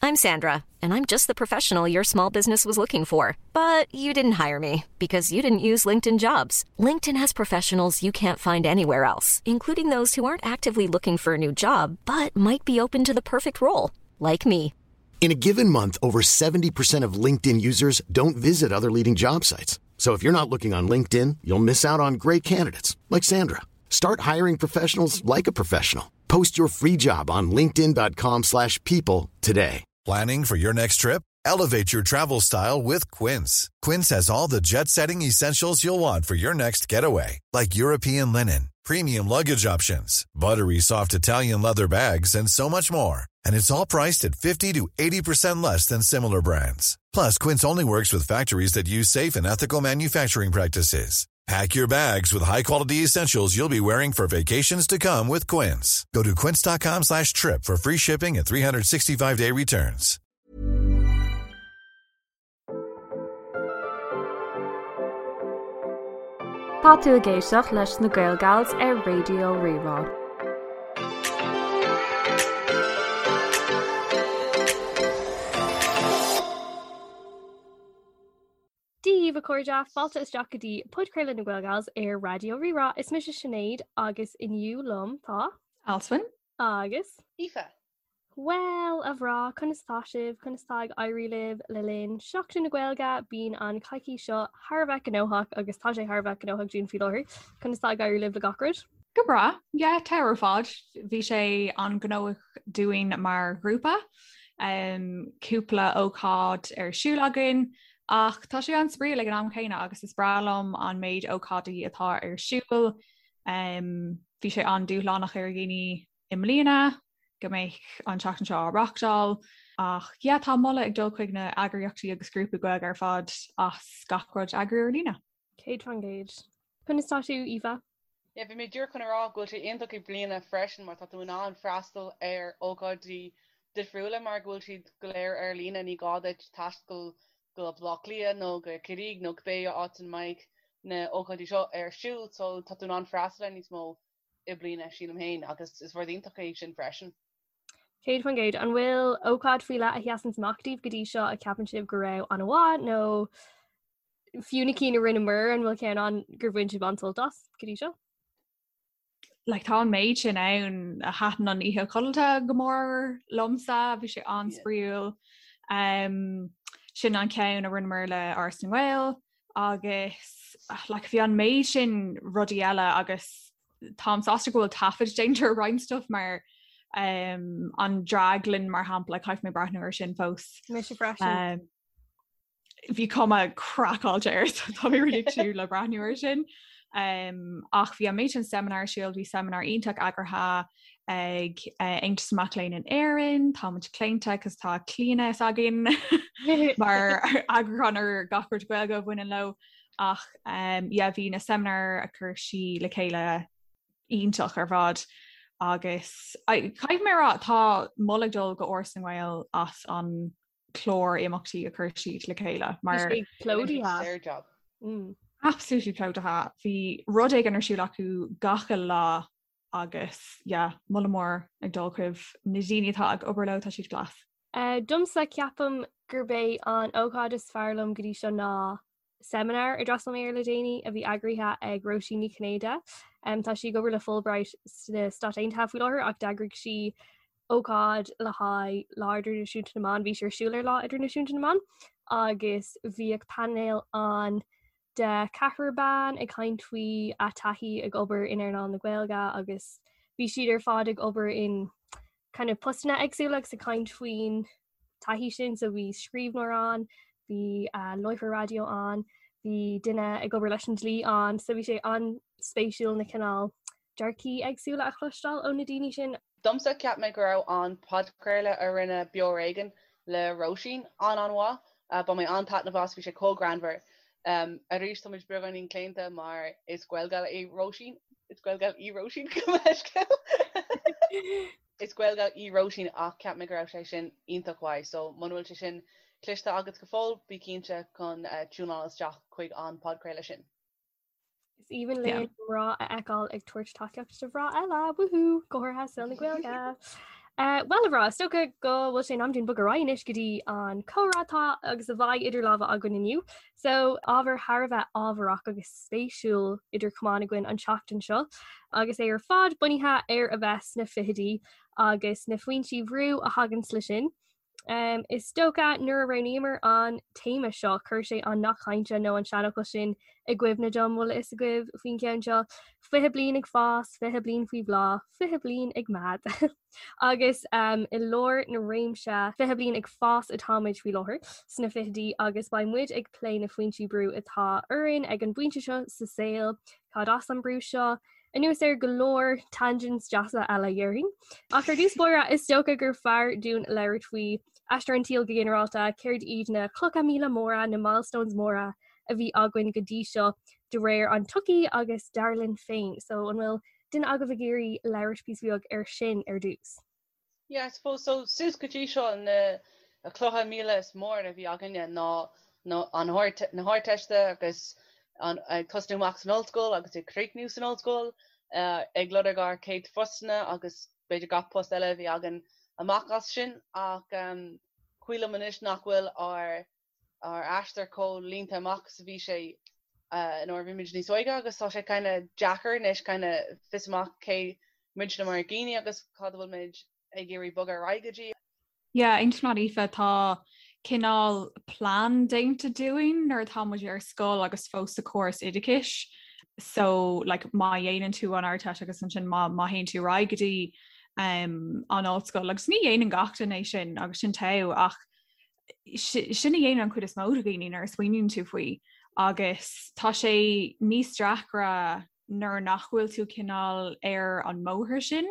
I'm Sandra, and I'm just the professional your small business was looking for. But you didn't hire me because you didn't use LinkedIn jobs. LinkedIn has professionals you can't find anywhere else, including those who aren't actively looking for a new job but might be open to the perfect role, like me. In a given month, over 70% of LinkedIn users don't visit other leading job sites. So if you're not looking on LinkedIn, you'll miss out on great candidates like Sandra. Start hiring professionals like a professional. Post your free job on linkedin.com/people slash people today. Planning for your next trip? Elevate your travel style with Quince. Quince has all the jet setting essentials you'll want for your next getaway, like European linen, premium luggage options, buttery soft Italian leather bags, and so much more. And it's all priced at 50 to 80% less than similar brands. Plus, Quince only works with factories that use safe and ethical manufacturing practices. Pack your bags with high-quality essentials you'll be wearing for vacations to come with Quince. Go to quince.com slash trip for free shipping and 365-day returns. Tá tú ag éisteacht leis na Gaelgals ar Raidió Rí-Rá. Dia daoibh a chairde, fáilte isteach go dtí podchraoladh na Gaelgals ar Raidió Rí-Rá. Is mise Sinéad agus inniu liom tá. Alswyn. Agus. Aoife. Bhuel, a mhná, conas tá sibh? Conas tá ag éirí libh le linn Seachtain na Gaeilge? Bíonn an coicís seo thar a bheith gnóthach agus tá sé thar a bheith gnóthach dúinn faoi láthair. Conas tá ag éirí libh le gach rud? Go breá, yeah, tá ar fad. Bhí sé an-ghnóthach dúinn mar ghrúpa. Um, cúpla ócáid ar siúl againn, ach tá sé an-spraíúil ag an am chéanna agus is breá liom an méid ócáidí atá ar siúl. Um, bhí sé an-dúshlánach ar dhaoine i mbliana go mbeadh an tseachtain seo á reáchtáil ach yeah, tá moladh ag dul chuig na eagraíochtaí agus grúpaí Gaeilge ar fad as gach rud a eagrú ar líne. 100%. Conas tá tú, Aoife? Yeah, bhí mé díreach chun a rá go bhfuil sé iontach i mbliana freisin mar tá tú in ann freastal ar ócáidí difriúla mar go bhfuil siad go léir ar líne, ní gá duit taisteal go Baile Átha Cliath nó go Ciarraí nó cibé áit ina mbeidh na ócáidí seo ar siúl so tá tú in ann freastal ar níos mó i mbliana, sílim féin, agus is rud iontach é sin freisin. 100%. An bhfuil ócáid faoi leith a sheasann amach daoibh go dtí seo a ceapann sibh go raibh an-mhaith nó fiú na cinn a rinneamar an bhfuil ceann ann gur bhain sibh an-sult as go dtí seo? Like, tá an méid sin ann a thaitin an oíche codlata go mór liomsa, bhí sé an-spraíúil. Um, sin an ceann a rinneamar le Áras na nGael agus like, bhí an méid sin rudaí eile agus táim sásta go bhfuil taifead déanta ar roinnt stuff mar um, an draglann mar shampla caithfidh mé breathnú ar sin fós. Mise freisin. Um, bhí cuma craiceáilte air so tá mé really ag súil le breathnú ar sin. Um, ach bhí an méid sin seimineár ar siúl, bhí seimineár iontach eagraithe ag uh, Aontas Mac Léinn in Éirinn, tá muid claonta cos tá Clíona s'againn mar eagrúchán ar gach rud Gaeilge a bhaineann leo ach um, yeah, bhí na seimineáir a chuir sí le chéile iontach ar fad agus caithfidh mé a rá tá moladh ag dul go Áras na nGael as an clár imeachtaí a chuir siad le chéile mar plódaithe. Mm. Absolutely plódaithe. Bhí rud éigin ar siúl acu gach uile lá agus yeah, moladh mór ag dul chuig na daoine atá ag obair leo tá siad class. Uh, domsa ceapaim gurb é an ócáid is fearr liom go dtí seo ná seimineár a d'fhreastail mé air le déanaí a bhí eagraithe ag Róisín Ní Chinnéide. Um, tá sí ag obair le Fulbright sna Stáit Aontaithe faoi láthair ach d'eagraigh sí ócáid le haghaidh Lá Idirnáisiúnta na mBan, bhí sé ar siúl ar Lá Idirnáisiúnta na mBan agus bhíodh painéal ann de ceathrar ban ag caint faoi a taithí ag obair in earnáil na Gaeilge agus bhí siad ar fad ag obair in kind of postanna éagsúla agus ag caint faoin taithí sin so bhí scríbhneoir ann, bhí uh, láithreoir raidió ann, bhí duine ag obair leis an dlí ann, so bhí sé an-spéisiúil na cineál dearcaí éagsúla a chloisteáil ó na daoine sin. Domsa, cheap mé go raibh an podchraoladh a rinne Beo Ar Éigean le Róisín an-an-mhaith. Bhain mé an-taitneamh as, bhí sé chomh greannmhar. Arís, tá muid beagáinín claonta mar is Gaelgal í Róisín, is Gaelgal í Róisín, gabh mo leithscéal. Is Gaelgal í Róisín ach cheap mé go raibh sé sin iontach mhaith so muna bhfuil sé sin cloiste agat go fóill, bí cinnte chun tiúnáil isteach chuig an podchraoladh sin. Is aoibhinn linn mná a fheiceáil ag tabhairt tacaíocht do mhná eile, woohoo, go háirithe i saol na Gaeilge. Bhuel a mhná, is dócha go bhfuil sé in am dúinn bogadh ar aghaidh anois go dtí an comhrá atá agus a bheidh idir lámha againn inniu. So, ábhar thar a bheith ábharach agus spéisiúil idir chamáin againn an tseachtain seo, agus é ar fad bunaithe ar a bheith sna fichidí agus na foinsí bhrú a thaganns le sin. Um, is dócha nuair a roghnaíomar an téama seo, chuir sé an nath cainte nó an seanfhocal sin i gcuimhne dom bhfuil a fhios agaibh faoin gceann seo, 20 bliain ag fás, 20 bliain faoi bhláth, 20 bliain ag meath. Agus um, i lár na réimse 20 bliain ag fás atáimid faoi láthair sna fichidí agus beidh muid ag plé na foinsí brú atá orainn ag an bpointe seo sa saol, cad as an brú seo, Anuas ar go leor tangents deasa eile, dhéarfainn. Ach ar dtús báire, is dócha gur fearr dúinn labhairt faoi aistear an tsaoil go ginearálta, céard iad na clocha míle móra, na milestones móra a bhí againn go dtí seo de réir an tsochaí agus dar linn féin. So an bhfuil duine agaibh ag iarraidh labhairt píosa beag ar sin ar dtús? Yeah, I suppose so suas go dtí seo na clocha míle is mór a bhí againne ná na an na hArdteiste agus an ag tosnú amach san ollscoil agus ag críochnú san ollscoil, ag lorg ár céad phostanna agus b'fhéidir gach post eile a bhí againn amach as sin ach cuimhin liom anois nach bhfuil ár ár aistear chomh línte amach is a bhí sé nuair a bhí muid níos óige agus tá sé kind of deacair anois kind of fios amach cé muidne mar dhaoine agus cad a bhfuil muid ag iarraidh bogadh ar aghaidh go dtí. Yeah, aontaím leat Aoife, tá cineál plean déanta dúinn nuair atá muid ar scoil agus fós sa chóras oideachais. So like má dhéanann tú an Ardteist agus ansin má má théann tú ar aghaidh go dtí um, an ollscoil agus ní dhéanann gach duine é sin agus sin togha ach sin a dhéanann an chuid is mó de dhaoine nuair a smaoiníonn tú faoi agus tá sé níos deacra nuair nach bhfuil tú cineál ar an mbóthar sin.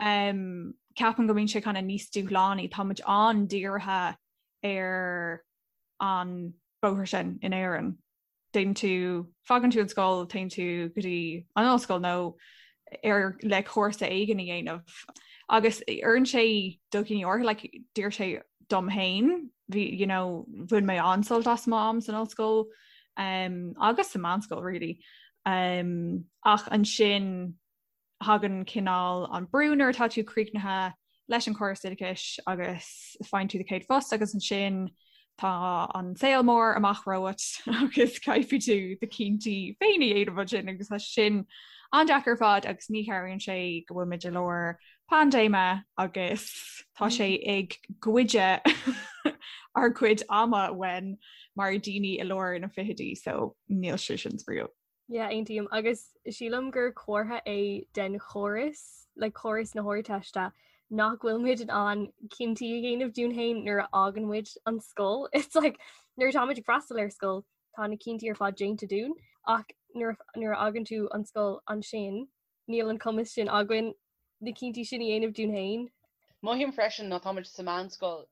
Um, ceapaim go mbíonn sé kind of níos dúshlánaí, tá muid an-dírithe ar an bóthar sin in Éirinn. Téann tú, fágann tú an scoil, téann tú go dtí an ollscoil nó ar le cúrsa éigin a dhéanamh. Agus oireann sé do dhaoine áirithe, like, d'oir sé dom féin, bhí, you know, bhain mé an-sult as m'am san ollscoil um, agus sa meánscoil really. Um, ach ansin thagann cineál an brú nuair atá tú críochnaithe leis an chóras oideachais agus faigheann tú do chéad phost agus ansin tá an saol mór amach romhat agus caithfidh tú do chinntí féin a dhéanamh ansin agus tá sin an-deacair ar fad agus ní chabhraíonn sé go bhfuil muid i lár paindéime agus tá sé ag goid ár gcuid ama uainn mar daoine i lár na fichidí so níl sé sin spraíúil. Yeah, aontaím agus sílim gur comhartha é den chóras, like córas na hArdteiste, nach bhfuil muid in ann cinntí a dhéanamh dúinn féin nuair a fhágann muid an scoil. It's like nuair atá muid ag freastal ar scoil, tá na cinntí ar fad déanta dúinn, ach nuair nuair a fhágann tú an scoil ansin, níl an cumas sin againn na cinntí sin a dhéanamh dúinn féin. Mothaím freisin nuair atá muid sa mheánscoil,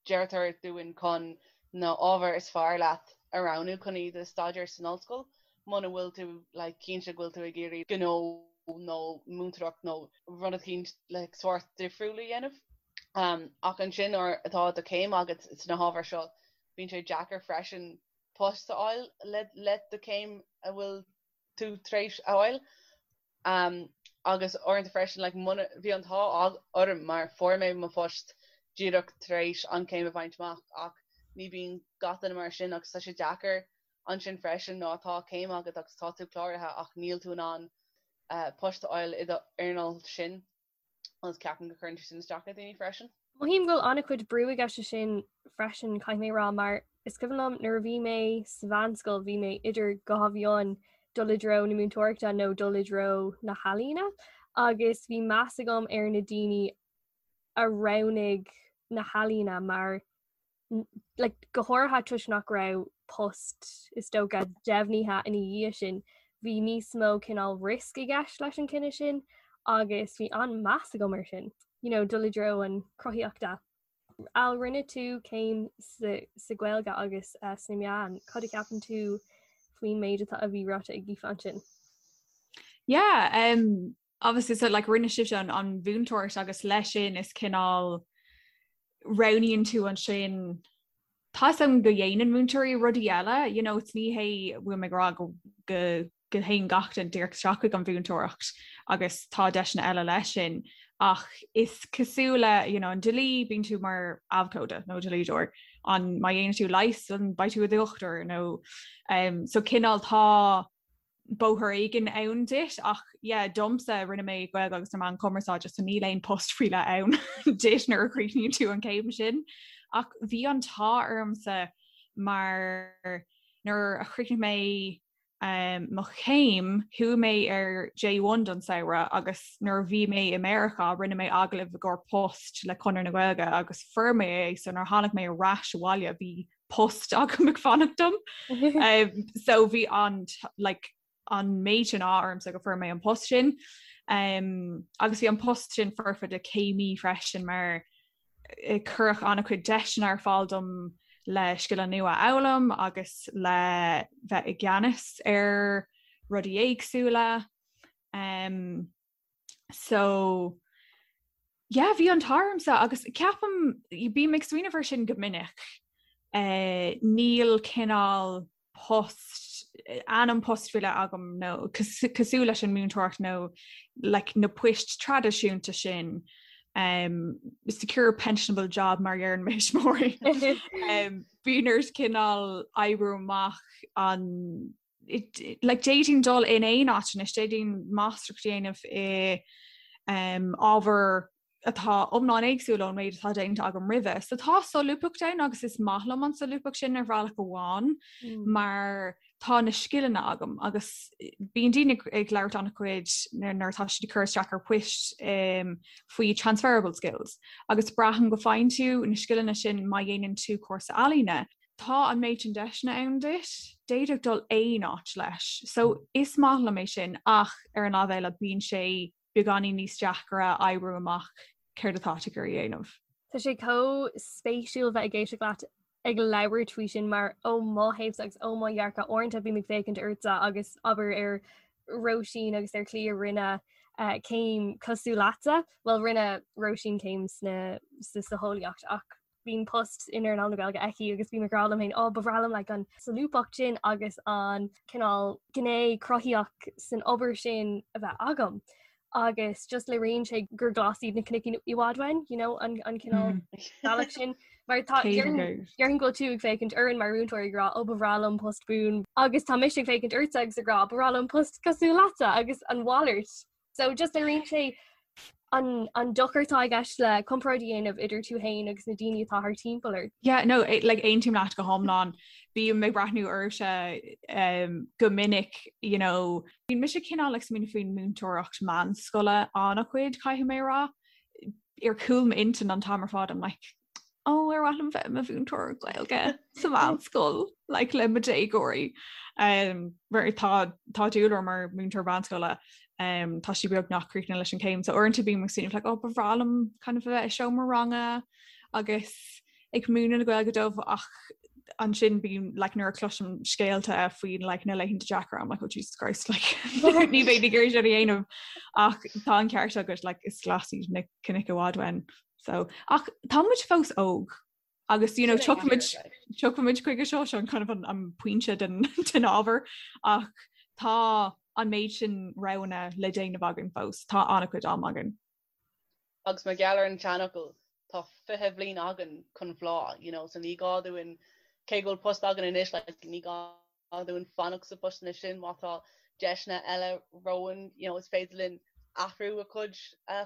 Deirtear dúinn chun na ábhair is fearr leat a roghnú chun iad a staidéar san ollscoil muna bhfuil tú like cinnte go bhfuil tú ag iarraidh gnó nó múinteoireacht nó rud eicínt like sórt difriúil a dhéanamh. Um, ach ansin nuair atá do chéim agat sna hábhair seo, bíonn sé deacair freisin post a fháil le le do chéim a bhfuil tú tar éis a fháil. Agus uaireanta freisin, like, muna, bhí an t-ádh orm mar fuair mé mo phost díreach tar éis an chéim a bhaint amach ach ní bíonn gach duine mar sin agus tá sé deacair ansin freisin nuair atá céim agat agus tá tú cláraithe ach níl tú in ann post a fháil i do earnáil sin. agus ceapaim go gcuireann sé sin isteach ar dhaoine freisin. Mothaím go bhfuil an-chuid brú i gceist leis sin freisin, caithfidh mé a rá, mar is cuimhin liom nuair a bhí mé sa mheánscoil bhí mé idir dhá mheon dul i dtreo na múinteoireachta nó dul i dtreo na healaíona agus bhí meas agam ar na daoine a roghnaigh na healaíona mar like, go háirithe toisc nach raibh post is dócha deimhnithe ina dhiaidh sin, bhí níos mó cineál risk i gceist leis an cinneadh sin agus bhí an-meas agam ar sin, you know, dul i dtreo an chruthaíochta. Al, rinne tú céim sa, sa Ghaeilge agus uh, sna meáin, cad a cheapann tú faoin méid atá a bhí ráite ag Aoife ansin? Yeah, um, obviously so like rinne sibhse an, an mhúinteoireacht agus leis sin is cineál roghnaíonn tú ansin Tá a fhios agam go dhéanann múinteoirí rudaí eile, you know, it's ní hé bhfuil mé ag rá go go go théann gach duine díreach isteach chuig an mhúinteoireacht agus tá deiseanna eile leis sin. Ach is cosúil le you know, an dlí bíonn tú mar abhcóide nó dlíodóir an má dhéanann tú leigheas an beidh tú i do dhochtúir nó um, so cineál tá bóthar éigin ann duit ach yeah, domsa rinne mé Gaeilge agus na meáin chumarsáide so níl aon post faoi leith ann duit nuair a chríochnaíonn tú an céim sin. Ach bhí an t-ádh ormsa mar nuair a chríochnaigh mé um, mo chéim, chuaigh mé ar J1 don samhradh agus nuair a bhí mé i Meiriceá rinne mé agallamh i gcomhair post le Conradh na Gaeilge agus fuair mé é so nuair a tháinig mé ar ais abhaile bhí post agam ag fanacht dom. um, so bhí an like, an méid sin ádh ormsa go fuair mé an post sin. Um, agus bhí an post sin foirfe do céimí freisin mar eh, cuireadh an-chuid deiseanna ar fáil dom le scileanna nua a fhoghlaim agus le bheith i gceannas ar rudaí éagsúla. Um, so yeah, bhí an t-ádh ormsa agus ceapaim bím ag smaoineamh air sin go minic. Uh, níl cineál post ainm post faoi leith agam nó cosúil leis an múinteoireacht nó like, na poist traidisiúnta sin um, secure pensionable job mar a deireann mo thuismitheoirí. um, bíonn ort cineál oibriú amach an like, d'fhéadfainn dul in aon áit anois, d'fhéadfainn máistreacht a dhéanamh i um, ábhar atá iomlán éagsúil ón méid atá déanta agam roimhe. So tá solúbthacht ann agus is maith liom an solúbthacht sin ar bhealach amháin mm. mar tá na scileanna agam agus bíonn daoine ag labhairt an-chuid nuair atá siad ag cur isteach ar poist um, faoi transferable skills agus braithim go bhfaigheann tú na scileanna sin má dhéanann tú cúrsa ealaíne. Tá an méid sin deiseanna ann duit, d'fhéadfadh dul aon áit leis. So is maith liom é sin ach ar an lámh eile bíonn sé beagáinín níos deacra oibriú amach céard atá tú ag iarraidh a dhéanamh. Tá sé chomh spéisiúil bheith ag éisteacht leat ag labhairt faoi sin mar ó mo thaobhsa agus ó mo dhearcadh uaireanta bím ag féachaint ortsa agus abair ar Róisín agus ar Chliodh a rinne eh, céim cosúil leatsa, bhuel rinne Róisín céim sna sa socheolaíocht ach bíonn post in earnáil na Gaeilge aici agus bím ag rá liom féin, ó ba bhreá liom like, an solúbthacht sin agus an cineál gné cruthaitheach san obair sin a bheith agam. Agus just léiríonn sé gur glas iad na cnoic i bhfad uainn, you know, an, an cineál mm. bealach sin. Mar tá déarfainn go bhfuil tú ag féachaint orainn mar mhúinteoir ag rá ó ba bhreá liom post buan agus tá mise ag féachaint ortsa agus ag rá ba bhreá liom post cosúil leatsa agus an mhalairt. So just léiríonn sé an, an dochar atá i gceist le comparáid a dhéanamh idir tú féin agus na daoine atá thar timpeall ort. Yeah, no, eh, like, aontaím leat go hiomlán. Bím ag breathnú oraibhse um, go minic, you know, bíonn mise cineál ag smaoineamh faoin múinteoireacht meánscoile an-chuid, caithfidh mé a rá. Ar chúl m'intinn an t-am ar fad, I'm like, ó ar mhaith liom bheith i mo mhúinteoir Gaeilge sa mheánscoil like, le mo déagóirí. Um, mar tá tá dúil orm mar múinteoir meánscoile um, tá sí beagnach críochnaithe leis an céim, so uaireanta bím ag smaoineamh like, oh, ba bhreá liom kind of a bheith i seomra ranga agus ag múineadh na Gaeilge dóibh ach ansin bím like, nuair a chloisim scéalta faoin like, na laethanta deacra I'm like, oh Jesus Christ like, ní bheinn ag iarraidh sin a dhéanamh ach tá an ceart agat like, is glas iad na cnoic i bhfad uainn. So, ach tá muid fós óg agus you know, tiocfaimid tiocfaimid chuige seo seo kind of an, an pointe den, den ábhar ach tá an méid sin roghanna le déanamh againn fós, tá an-chuid am againn. Agus mar gheall ar an tseanfhocal tá 20 bhliain againn chun bhláth, you know, so ní gá dúinn cé go bhfuil post againn anois like, ní gá dúinn fanacht sa phostanna sin má tá deiseanna eile romhainn, you know, is féidir linn athrú a chuid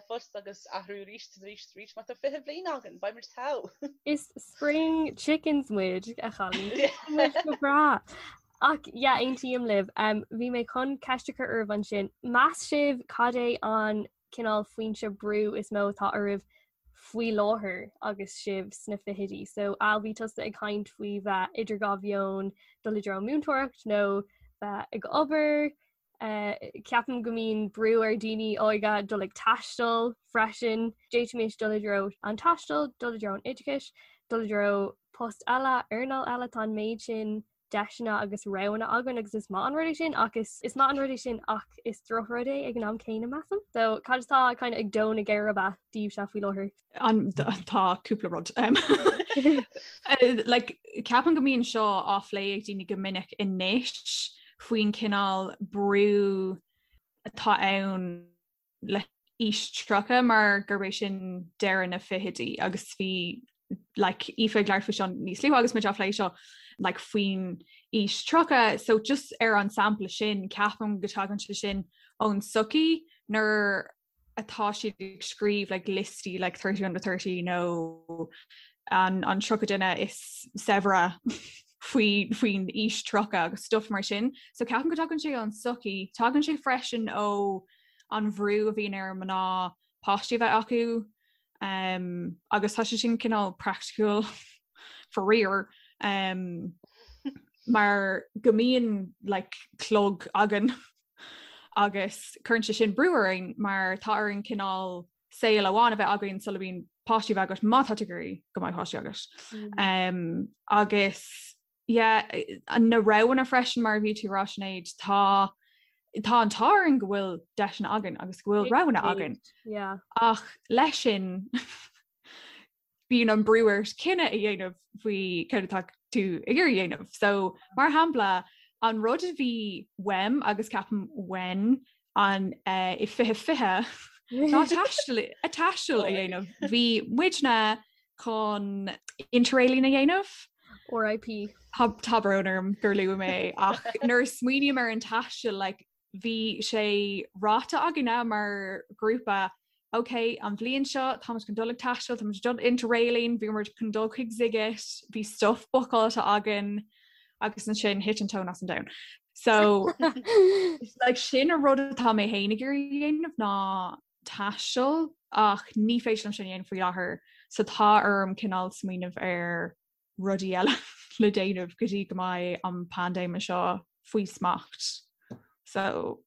phost agus athrú arís is arís is arís má tá 20 bhliain againn, beidh muid togha. Is spring chickens muid, a chailíní. Muid go breá. Ach yeah, aontaím libh. Um, bhí mé chun ceist a chur oraibh ansin. Meas sibh cad é an cineál foinse brú is mó atá oraibh faoi láthair agus sibh sna fichidí. So Al bhí tusa ag caint faoi bheith idir dhá mheon dul i dtreo múinteoireacht nó bheith ag obair. Uh, ceapaim go mbíonn brú ar daoine óga dul ag taisteal freisin. D'fhéadfaimis dul i dtreo an taistil, dul i dtreo an oideachais, dul i dtreo post eile, earnáil eile tá an méid sin deiseanna agus roghanna againn agus is maith an rud é sin ach is is maith an rud é sin ach is drochrud é ag an am céanna measaim. So cad atá kind of ag dó na geirbe daoibhse faoi láthair? An tá cúpla rud. Um, eh, like, ceapaim go mbíonn seo á phlé ag daoine go minic anois faoin cineál brú atá ann le aois 30 mar gurb é sin deireadh na fichidí agus bhí like Aoife ag labhairt faoi seo níos luaithe agus muid á phlé seo like faoin aois 30 so just ar an sampla sin ceapaim go dtagann sé sin ón sochaí nuair atá siad ag scríobh like liostaí like 30 under 30 nó an an 30 duine is saibhre faoi faoin aois 30 agus stuff mar sin. So ceapaim go dtagann sé ón sochaí, tagann sé freisin ó an bhrú a bhíonn ar mná páistí a bheith acu um, agus tá sé sin cineál praiticiúil faraor um, mar go mbíonn like, clog againn agus cuireann sé sin brú orainn mar tá orainn cineál saol amháin a bheith againn sula mbíonn páistí a bheith agat má tá tú ag iarraidh go mbeidh páistí agat. Mm. Um, agus yeah, na roghanna freisin mar a bhí tú ag rá Sinéad, tá tá an t-ádh orainn go bhfuil deiseanna againn agus go bhfuil roghanna againn. Yeah. Ach leis sin bíonn an brú ort cinneadh a dhéanamh faoi céard atá tú ag iarraidh a dhéanamh. So mar shampla an rud a bhí uaim agus ceapaim uainn an uh, i 2020 ná taisteal a taisteal a dhéanamh. Bhí muidne chun interrailing a dhéanamh. RIP. Tá brón orm gur luaigh mé ach nuair a smaoiním ar an taisteal like, bhí sé ráite againne mar ghrúpa ok an bhliain seo táimid chun dul ag taisteal, táimid dul interrailing, bhí muid chun dul chuig Sziget, bhí stuff bookáilte againn agus ansin thit an tóin as an domhan. So like, sin an rud atá mé féin ag iarraidh a dhéanamh ná taisteal ach ní féidir liom sin a dhéanamh faoi láthair so tá orm cineál smaoineamh ar rudaí eile le déanamh go dtí go mbeidh an paindéim seo faoi smacht. So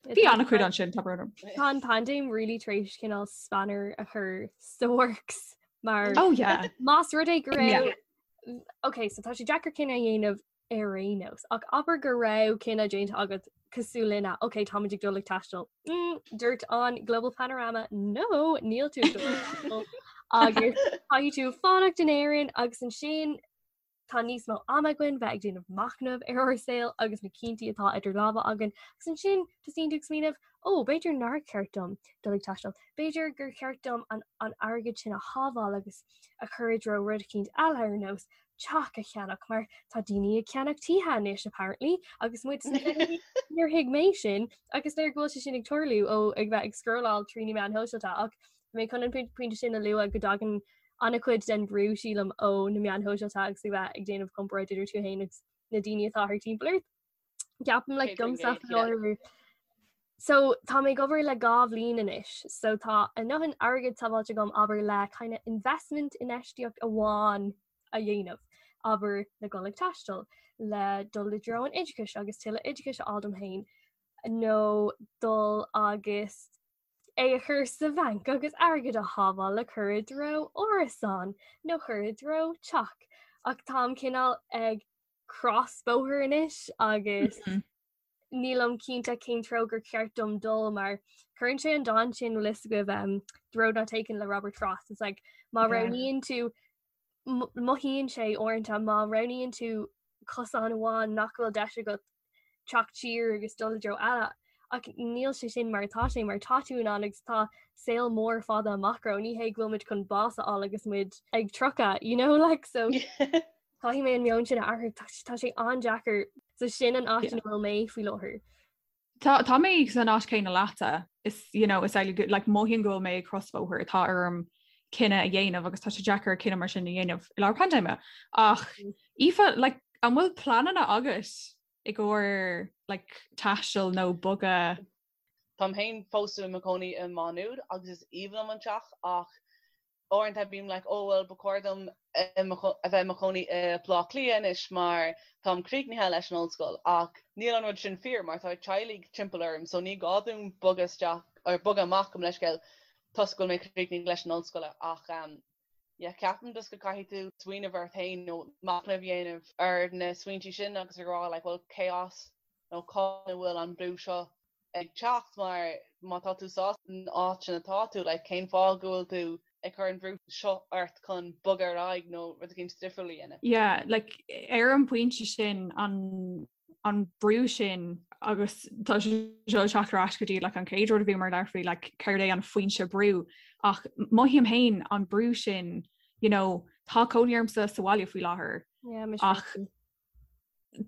bhí an-chuid ansin tá brón orm. Tá an paindéim really tar éis cineál spanner a chur sa works mar Oh yeah. Más rud é go raibh Ok, so tá sé deacair cinneadh a dhéanamh ar aon nós. Ach abair go raibh cinneadh déanta agat cosúil linne, ok, táimid ag dul ag taisteal. Mm, dúirt an Global Panorama, no, níl tú ag dul ag taisteal. Agus caithfidh tú fanacht in Éirinn agus ansin tá níos mó ama againn bheith ag déanamh machnamh ar ár saol agus na cinntí atá idir lámha againn. Agus ansin tosaíonn tú ag smaoineamh, ó, b'fhéidir nár cheart dom dul ag taisteal. B'fhéidir gur cheart dom an, an airgead sin a shábháil agus a chur i dtreo rud eicínt eile ar nós teach a cheannach mar tá daoine ag ceannach tithe anois apparently agus muid níor thuig mé sin agus léir go bhfuil sé sin ag tarlú ó ag bheith ag scrolláil trí na meáin shóisialta ach mé chun an pointe sin a lua go dtagann an-chuid den bhrú sílim ó na meáin shóisialta agus ag bheith ag déanamh comparáid idir tú féin agus na daoine atá thart timpeall ort. Ceapaim like domsa faoi So tá mé ag obair le 2 bhliain anois, so tá a ndóthain airgid sábháilte agam abair le kind of investment infheistíocht amháin a dhéanamh, abair le dul ag taisteal, le dul i dtreo an oideachais agus tuilleadh oideachais a fháil dom féin, nó dul agus é a chur sa bhanc agus airgead a shábháil le cur i dtreo árasán nó cur i dtreo teach. Ach táim cineál ag crosbhóthar anois agus nílim cinnte cén treo gur cheart dom dul mar cuireann sé an dán sin bhfuil fhios agaibh um, The Road Not Taken le Robert Frost. It's like má roghnaíonn tú mothaíonn sé uaireanta má roghnaíonn tú cosán amháin nach bhfuil deis agat teacht siar agus dul i dtreo eile. Ach níl sé sin mar atá sé mar tá tú in ann agus tá saol mór fada amach romhainn. Ní hé go bhfuil muid chun bás a fháil agus muid ag 30, you know, like so Caithfidh mé an meon sin a athrú, tá sé an-deacair. So sin an áit ina bhfuil mé faoi láthair. Tá tá mé san áit céanna leatsa. Is you know, is like, like mothaím go bhfuil mé ag crosbhóthar tá orm cinneadh a dhéanamh agus tá sé deacair cinneadh mar sin a dhéanamh i lár paindéime. Ach mm. Aoife, like, an bhfuil pleananna agat i gcomhair like, taisteal nó bogadh? Táim féin fós i mo chónaí i Má Nuad agus is aoibhinn liom an teach ach uaireanta bím like oh well ba chóir dom a bheith i mo chónaí i Baile Átha Cliath anois mar táim críochnaithe leis an ollscoil ach níl an rud sin fíor mar tá teaghlaigh timpeall orm so ní gá dom bogadh isteach or bogadh amach gabh mo leithscéal toisc go bhfuil mé críochnaithe leis an ollscoil ach um, yeah, ceapaim just go caithfidh tú smaoineamh ort féin nó machnamh a dhéanamh ar na smaointe sin agus a rá like well cé as nó cá bhfuil an brú seo ag teacht mar má tá tú sásta san áit sin atá tú, like cén fáth go bhfuil tú ag cur an bhrú seo ort chun bogadh ar aghaidh nó rud eicínt difriúil a dhéanamh? Yeah, like ar an bpointe sin an. an brú sin agus tá sé seo ag teacht ar ais go dtí like, an chéad rud a bhíomar ag labhairt faoi like, céard é an foinse brú ach mothaím féin an brú sin you know, tá cónaí ormsa sa bhaile faoi láthair yeah, ach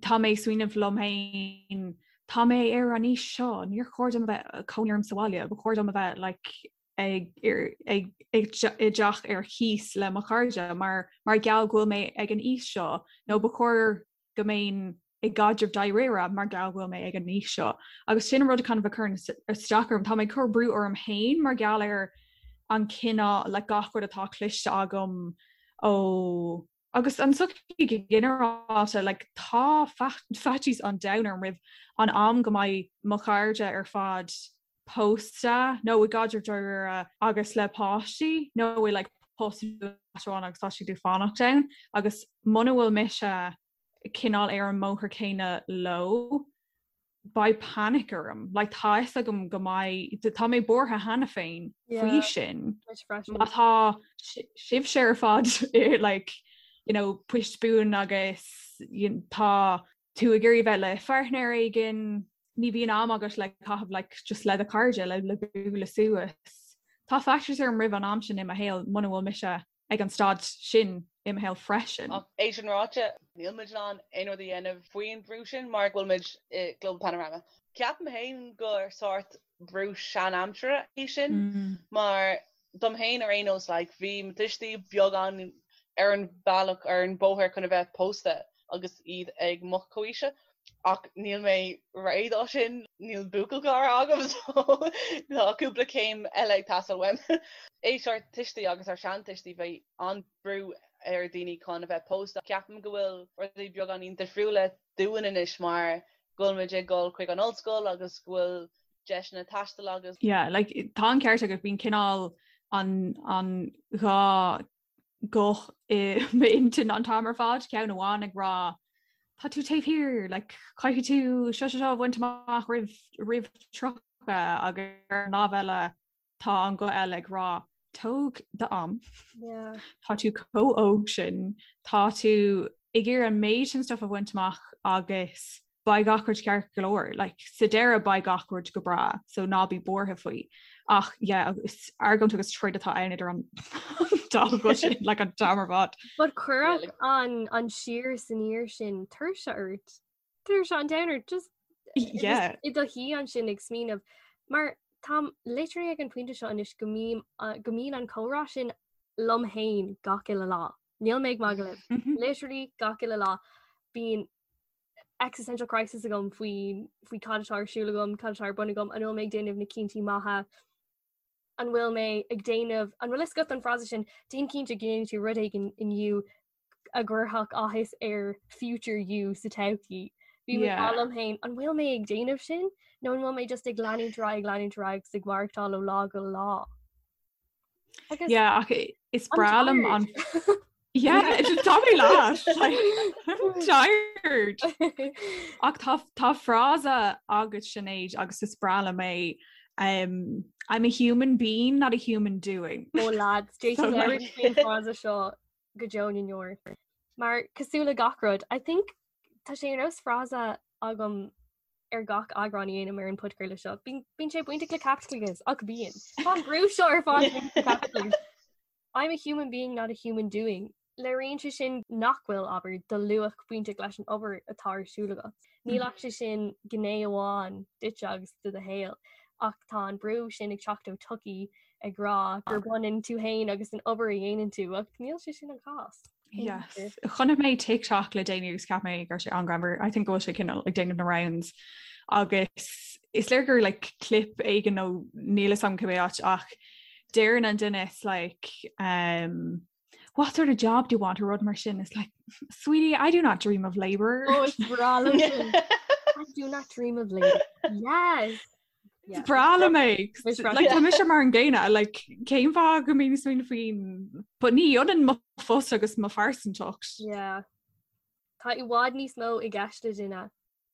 tá mé ag smaoineamh liom féin tá mé ar an aois seo níor chóir dom a bheith cónaí orm sa bhaile ba chóir dom a bheith like, ag ag i dteach ar cíos le mo chairde mar mar gheall go bhfuil mé ag an aois seo nó ba chóir go mbeinn i gcaidreamh dáiríre mar gheall go bhfuil mé ag an aois seo. Agus sin an rud kind of a chuireann isteach orm. Tá mé ag cur brú orm féin mar gheall ar an cineál like gach rud atá cloiste agam ó agus an tsochaí go ginearálta like tá faitíos an domhain orm roimh an am go mbeidh mo chairde ar fad pósta nó i gcaidreamh dáiríre agus le páistí nó i like post amháin agus tá siad ag fanacht ann agus muna bhfuil mise cineál ar an mbóthar céanna leo beidh panic orm. Like tá fhios agam go mbeidh tá mé buartha cheana féin faoi sin. Má tá sibhse ar fad i like you know poist buan agus tá tú ag iarraidh bheith le pháirtnéir éigin, ní bhíonn am agat le caitheamh like just le do chairde le le bualadh suas. Tá faitíos orm roimh an am sin i mo shaol muna bhfuil mise ag an staid sin i mo shaol freisin. Ach é sin ráite, níl muid in ann aon rud a dhéanamh faoin bhrú sin mar go bhfuil muid i Global Panorama. Ceapaim féin gur sórt brú sean-aimsire é sin mar dom féin ar aon nós like bhí mo tuistí beagán ar an bhealach ar an bóthar chun a bheith pósta agus iad ag mo chomhaoise ach níl mé réidh dó sin, níl buachaill cara agam so tá cúpla céim eile ag teastáil uaim. Aois ár tuistí agus ár seantuistí bhí an-brú ar daoine chun a bheith pósta. Ceapaim go bhfuil rudaí beagáinín difriúla dúinn anois mar go bhfuil muid ag dul chuig an ollscoil agus go bhfuil deiseanna taistil agus. Yeah, like tá an ceart agat bíonn cineál an an dá guth i m'intinn an t-am ar fad, ceann amháin ag rá tá tú taobh thiar, like caithfidh tú seo seo seo a bhaint amach roimh roimh 30 agus ar an lámh eile tá an guth eile ag rá tóg d'am. Yeah. Tá tú chomh óg sin, tá tú ag iarraidh an méid sin stuff a bhaint amach agus beidh gach rud ceart go leor. Like, sa deireadh beidh gach rud go breá, so ná bí buartha faoi. Ach yeah, is argóint agus troid atá ann idir an dá ghuth sin like an t-am ar fad. But cuirfeadh an an siar is aniar sin tuirse ort. Tuirse an domhain ort just Yeah. i do shuí ansin ag smaoineamh mar táim literally ag an pointe seo anois go mbím go mbíonn an comhrá sin liom féin gach uile lá. Níl mé ag magadh libh. Mhm. Literally gach uile lá bíonn existential crisis agam faoi faoi cad atá ar siúl agam, cad atá ar bun agam, an bhfuil mé ag déanamh na cinntí maithe, an bhfuil mé ag déanamh, an bhfuil fhios agat an frása sin, déan cinnte go ndéanann tú rud éigin inniu a gcuirfeadh áthas ar future you sa todhchaí. Bím ag rá liom féin, an bhfuil mé ag déanamh sin nó an bhfuil mé just ag leanúint ar aghaidh, ag leanúint ar aghaidh agus ag maireachtáil ó lá go lá? Agus Yeah, ach is breá liom an Yeah, tá mé leat. Like, I'm tired. Ach tá tá frása agat Sinéad agus is breá liom é um, I'm a human being, not a human doing. Ó lads, So, like- faoin frása seo go deo na ndeor. Mar cosúil le gach rud, I think tá sé ar nós frása agam ar gach eagrán a dhéanaim ar an podchraoladh seo. Bíonn sé bainteach le caipitleachas ach bíonn. Tá an brú seo ar fad bainteach le caipitleachas. I'm a human being not a human doing. Léiríonn sé sin nach bhfuil, abair, do luach bainteach leis an obair atá ar siúl agat. Níl ach sé sin gné amháin duitse agus de do shaol, ach tá an brú sin ag teacht ó tsochaí ag rá gur baineann tú féin agus an obair a dhéanann tú, ach níl sé sin an cás. Yes. Chonaic mé TikTok le déanaí agus cheap mé go raibh sé an-ghreannmhar. I think go bhfuil sé cineál ag déanamh na rounds. Agus is léir gur like clip éigin nó níl fhios agam cibé áit ach deireann an duine it's like um, what sort of job do you want or rud mar sin it's like sweetie I do not dream of labour. Oh, is breá liom sin. I do not dream of labour. Yes. Is breá liom é. Is breá- Like, tá mise mar an gcéanna, like, cén fáth go mbím ag smaoineamh faoin but ní ionann mo phost agus mo phearsantacht. Yeah. Tá i bhfad níos mó i gceist le duine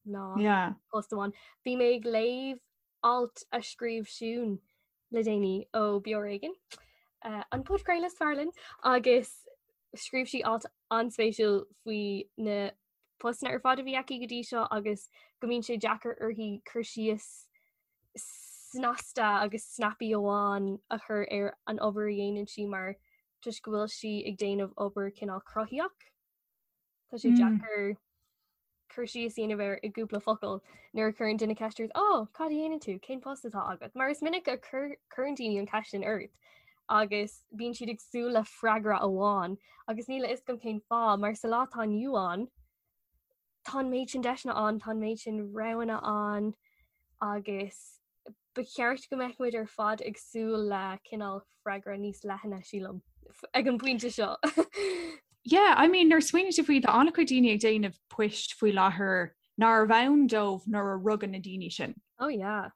ná Yeah. post amháin. Bhí mé ag léamh alt a scríobh Siún le déanaí ó Beo Ar Éigean, uh, an podchraoladh is fearr linn, agus scríobh sí alt an-spéisiúil faoi na. postanna ar fad a bhí aici go dtí seo agus go mbíonn sé deacair uirthi cur síos snasta agus snappy amháin a chur ar an obair a dhéanann sí mar toisc go bhfuil sí ag déanamh obair cineál cruthaitheach. Tá sé deacair cur síos a dhéanamh air i gcúpla focal nuair a chuireann duine ceist ort, "Ó, cad a dhéanann tú? Cén post atá agat?" Mar is minic a chuireann daoine an cheist sin ort agus bíonn siad ag súil le freagra amháin agus níl a fhios agam cén fáth mar sa lá atá inniu ann tá an méid sin deiseanna ann, tá an méid sin roghanna ann agus ba cheart go mbeadh muid ar fad ag súil le cineál freagra níos leithne, sílim, ag an bpointe seo. Yeah, I mean, nuair a smaoiníonn tú faoi, tá an-chuid daoine ag déanamh poist faoi láthair nárbh ann dóibh nuair a rugadh na daoine sin. Oh yeah.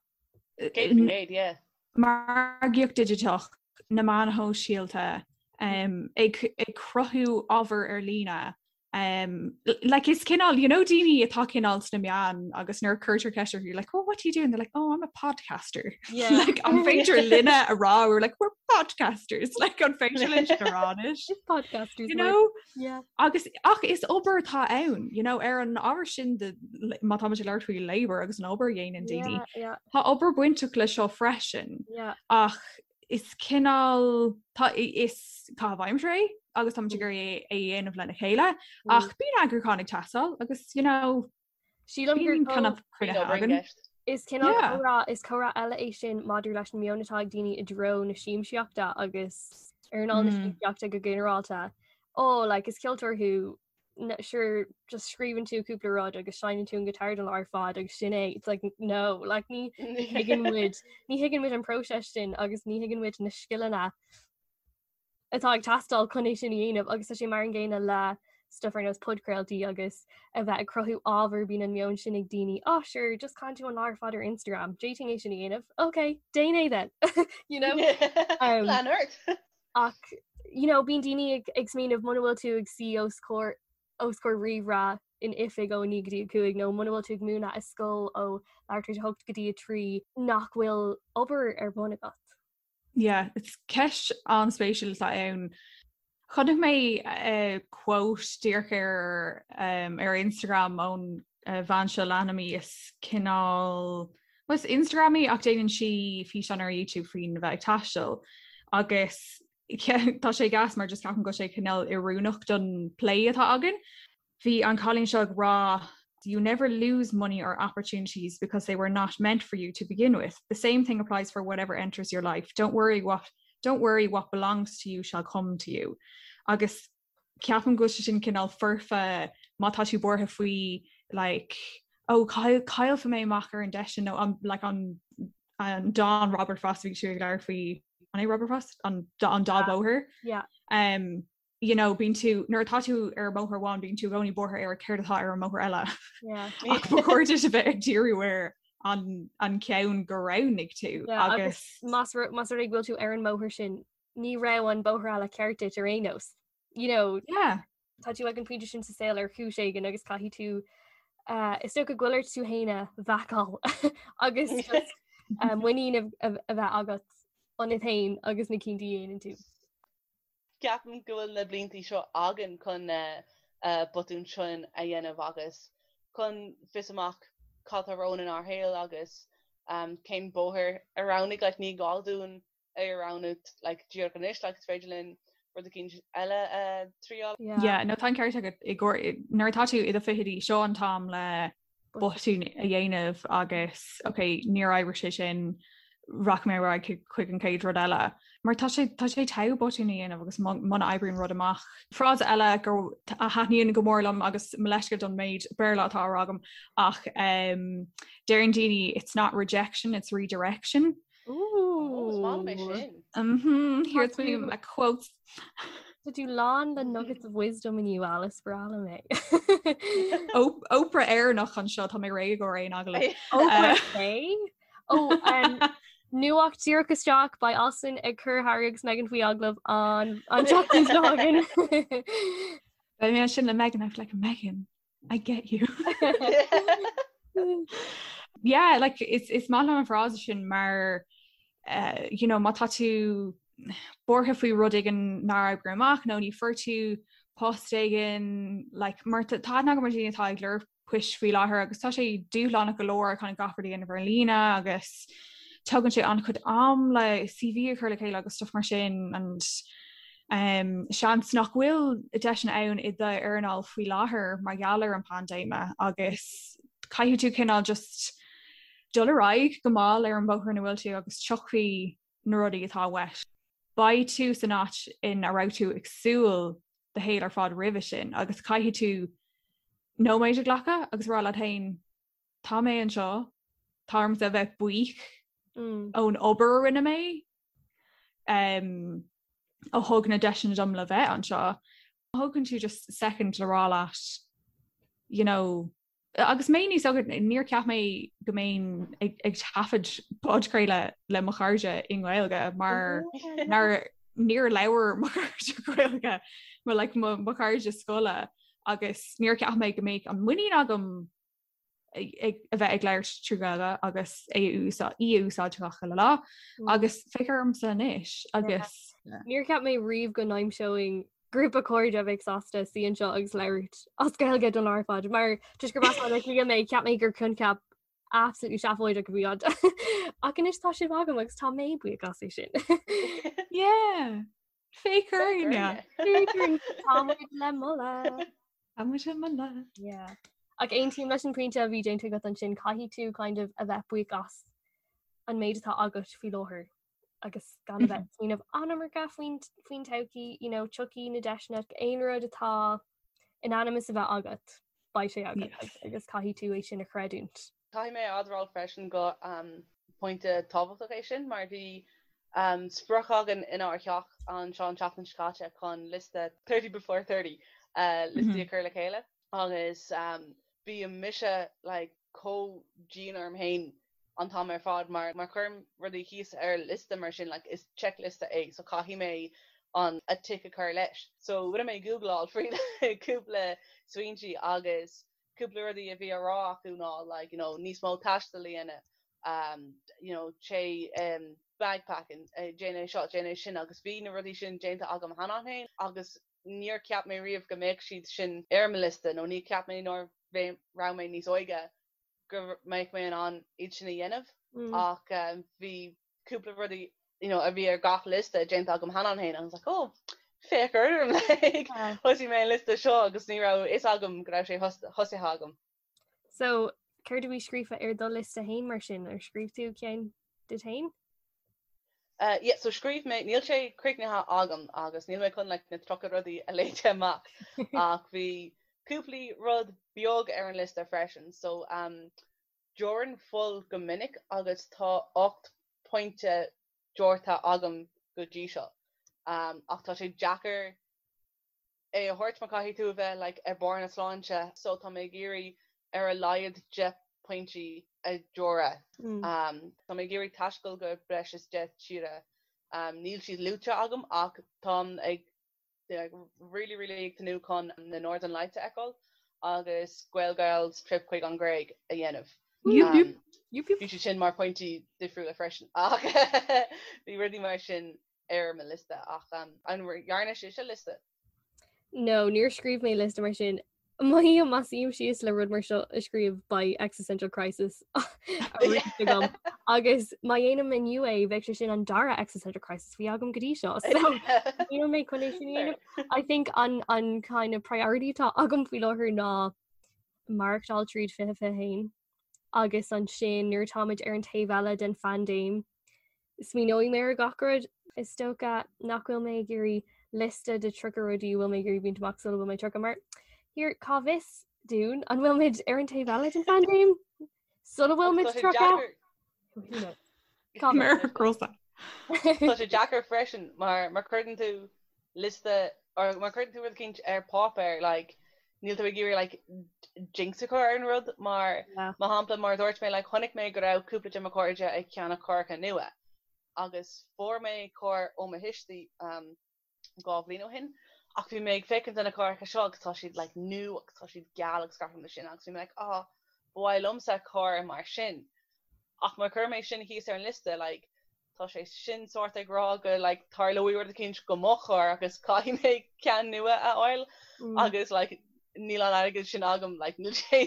100%, yeah. Margaíocht digiteach, na meáin shóisialta, um, ag, ag cruthú ábhar ar líne, Um, like is cineál, you know, daoine atá cineál sna meáin agus nuair a cuirtear ceist orthu, like, oh, what do you do? And they're like, oh, I'm a podcaster. Yeah. like, an féidir linne a rá, we're like, we're podcasters. Like, an féidir linn a rá anois. Podcasters. You know? Yeah. Agus ach is obair atá ann, you know, ar an ábhar sin de, má tá muid ag labhairt faoi labor agus an obair a dhéanann daoine. Yeah, yeah. Tá obair bainteach le seo freisin. Yeah. Ach is cineál tá is caitheamh aimsire é agus táimid ag iarraidh é a dhéanamh lena chéile ach bíonn eagrúchán ag teastáil agus you know Sílim gur bíonn kind of cruinnithe againn. Is cineál comhrá is comhrá eile é sin maidir leis an meon atá ag daoine i dtreo na siamsaíochta agus earnáil na siamsaíochta go ginearálta. Ó, like, is ceoltóir thú sure just scríobhann tú cúpla rud agus seinneann tú an guitar don lá ar fad agus sin é it's like no like ní thuigeann muid ní thuigeann muid an próiseas sin agus ní thuigeann muid na scileanna atá ag teastáil chun é sin a dhéanamh agus tá sé mar an gcéanna le stuff ar nós podchraoltaí agus a bheith ag cruthú ábhar bíonn an meon sin ag daoine oh sure just caitheann tú an lá ar fad ar Instagram d'fhéadfainn é sin a dhéanamh ok déan é then you know um, Lean ort. Ach you know bíonn daoine ag ag smaoineamh muna bhfuil tú ag suí os comhair os comhair ríomhaire in oifig ó 9 go dtí 5 nó muna bhfuil tú ag múineadh i scoil ó leathuair tar éis 8 go dtí 3 nach bhfuil obair ar bun agat. Yeah, it's ceist an-spéisiúil atá ann. Chonaic mé uh, quote díreach ar um, ar Instagram ón uh, bhean seo leanaim í is cineál Well, is Instagramaí ach déanann sí físeán ar YouTube faoin bheith ag taisteal agus tá sé gas mar just ceapaim go bhfuil sé cineál oiriúnach don plé atá againn. Bhí an cailín seo ag rá You never lose money or opportunities because they were not meant for you to begin with. The same thing applies for whatever enters your life. Don't worry what don't worry what belongs to you shall come to you. Agus ceapaim go bhfuil sé sin cineál foirfe má tá tú buartha faoi like oh caillfidh mé amach ar an deis sin nó an like an an dán Robert Frost bhí tú ag labhairt faoi an é Robert Frost an an dá bóthar yeah um you know bíonn tú nuair atá tú ar bóthar amháin bíonn tú i gcónaí buartha ar céard atá ar an mbóthar eile yeah ach ba chóir duit a bheith ag díriú ar an an ceann gur roghnaigh tú yeah, agus más más rud é go bhfuil tú ar an mbóthar sin ní raibh an bóthar eile ceart duit ar aon nós. You know, yeah. Tá tú ag an pointe sin sa saol ar chúis éigin agus caithfidh tú uh, is dócha go bhfuil ort tú féin a bhacáil agus just, uh, muinín a, a, a bheith agat ionat féin agus na cinntí a dhéanann tú. Ceapaim go bhfuil na blianta seo againn chun na uh, botúin sin a dhéanamh agus chun fios amach cad tá romhainn inár shaol agus um, cén bóthar a roghnaigh like, ní gá dúinn é a roghnú like díreach anois like is féidir linn rud eicínt eile a triail. Yeah, no tá an ceart agat i gcóir nuair atá tú i do fichidí seo an t-am le botún a dhéanamh agus ok níor oibrigh sé sin rachaidh mé ar aghaidh chuig an chéad rud eile. Mar tá sé tá sé togha botún a dhéanamh agus muna oibríonn rud amach. Frása eile go a thaitníonn go mór liom agus mo leithscéal don méid Béarla atá á rá agam ach um, deireann daoine it's not rejection, it's redirection. Ooh. Is maith liom é sin. Mhm, here's me my quotes. Tá tú lán le nuggets of wisdom inniu Alice breá liom é. Oprah Éireannach anseo tá mé réidh go aon agallamh. Oprah é? Ó um, nuacht díreach isteach beidh Alison ag cur Harry agus Meghan faoi agallamh an an tseachtain seo chugainn. Beidh mé sin le Meghan I'm like Meghan I get you. yeah, like is is maith liom an frása sin mar uh, you know, má tá tú buartha faoi rud éigin nár oibrigh amach nó ní fuair tú. Post éigin like mar tá aithne agam ar dhaoine atá ag lorg poist faoi láthair agus tá sé dúshlánach go leor kind of gach rud a dhéanamh ar líne agus tugann sé an-chuid am le CV a chur le chéile agus stuff mar sin and um, seans nach bhfuil deiseanna ann i d'earnáil faoi láthair mar gheall ar an paindéime agus caithfidh tú cineál just dul ar aghaidh go mall ar an bóthar ina bhfuil tú agus tiocfaidh na rudaí atá uait. Beidh tú san áit ina raibh tú ag súil do shaol ar fad roimhe sin agus caithfidh tú nóiméad a ghlacadh agus rá leat féin tá mé anseo, tá ormsa a bheith buíoch mm. ón obair a rinne mé um, a thug na deiseanna dom le bheith anseo. Thógann tú just second le rá leat you know, Agus mé níos óige níor cheap mé go mbeinn ag taifead podchraoladh le mo chairde i nGaeilge mar níor labhair mo chairde Gaeilge mo like mo mo chairde scoile agus níor cheap mé go mbeadh an muinín agam ag a bheith ag labhairt trí Ghaeilge agus é úsáid í a úsáid gach uile lá agus féach ormsa anois agus Níor cheap mé riamh go n-aimseoinn grúpa cairde a bheadh sásta suí anseo agus labhairt as Gaeilge don lá ar fad mar toisc gurb as Baile Átha Cliath mé cheap mé gur coincheap absolutely seafóideach a bhí ann. Ach anois tá sibh agam agus tá mé buíoch as é sin. Yeah. Féach orainne. Tá muid le moladh. Tá muid le moladh. Yeah. Ach aontaím leis an pointe a bhí déanta agat ansin caithfidh tú kind of a bheith buíoch as an méid atá agat faoi láthair. agus gan a bheith ag smaoineamh an-iomarca faoin faoin todhchaí, you know, tiocfaidh na deiseanna aon rud atá in ainm is a bheith agat, beidh sé agat Yes. agus caithfidh tú é sin a chreidiúint. Caithfidh mé a admháil freisin go um, pointe tábhachtach é sin mar bhí um, sprioc againn inár theach anseo an tseachtain seo caite chun liosta 30 before 30 uh, liostaí a chur le chéile agus um, bíonn mise like, chomh dian orm féin an t-am ar fad mar má chuirim rudaí thíos ar liosta mar sin like is checkliosta é so caithfidh mé an a tick a chur leis. So rinne mé googláil faoi cúpla smaointí agus cúpla rudaí a bhí á rá acu ná like you know níos mó taistil a dhéanamh um you know téigh um bagpacking déan é seo déan é sin agus bhí na rudaí sin déanta agam cheana féin agus níor cheap mé riamh go mbeadh siad sin ar mo liosta nó níor cheap mé nuair a raibh mé níos óige go mbeadh mé in ann iad sin a dhéanamh ach bhí cúpla rudaí you know a bhí ar gach liosta déanta agam cheana féin and I was like oh féach orm like thosaigh mé an liosta seo agus ní raibh fhios agam go raibh sé thosaithe agam. So céard a bhí scríofa ar do liosta féin mar sin ar scríobh tú ceann duit féin? Uh, yeah, so scríobh mé, níl sé críochnaithe agam agus níl mé chun like, na 30 rudaí a léite amach ach bhí cúpla rud beag ar an liosta freisin. So um, deoraim fuil go minic agus tá 8 pointe deortha agam go dtí seo. Um, ach tá sé deacair é a thabhairt mar caithfidh tú a bheith like ar barr na sláinte so tá mé ag iarraidh ar a laghad 10 pointí a dheoradh. Um, tá mé ag iarraidh taisteal go breis is 10 tíre. Um, níl siad luaite agam ach táim ag like, really really ag tnúth chun na Northern Lights a fheiceáil agus Gaelgals trip chuig an Ghréig a dhéanamh. Um, bhí siad sin mar pointí difriúla freisin ach bhí rudaí mar sin ar mo liosta ach an ndearna sibhse liosta? No, níor scríobh mé liosta mar sin. Mothaím má suím síos le rud mar seo a scríobh beidh existential crisis arís agam. Agus má dhéanaim inniu é bheadh sé sin an dara existential crisis bhí agam go dtí seo. So níl mé chun é sin a dhéanamh. I think an an kind of priority atá agam faoi láthair ná maireachtáil tríd 2021 agus ansin nuair atáimid ar an taobh eile den phaindéim Smaoineoidh mé ar gach rud. Is dócha nach bhfuil mé ag iarraidh liosta de 30 rudaí a bhfuil mé ag iarraidh baint amach sula bhfuil mé 30 mar here cá bhfios dúinn an bhfuil muid ar an taobh eile den phaindéim sula bhfuil muid 30? Tá sé deacair freisin mar má chuireann tú liosta or má chuireann tú rud eicínt ar páipéar like níl tú ag iarraidh like jinx a chur ar an rud mar mar shampla mar a dúirt mé like chonaic mé go raibh cúpla de mo chairde ag ceannach carracha nua agus fuair mé carr ó mo thuistí um, dhá bhliain ó shin ach bhí mé ag féachaint ar na carracha seo agus tá siad like nua agus tá siad geal agus gach rud mar sin agus bhí mé like ah ba mhaith liomsa carr mar sin ach má chuir mé sin thíos ar an liosta like. Tá sé sin sórt ag rá go like tarlóidh rud eicínt go mo charr agus caithfidh mé ceann nua a fháil agus like níl an airgead sin agam like níl sé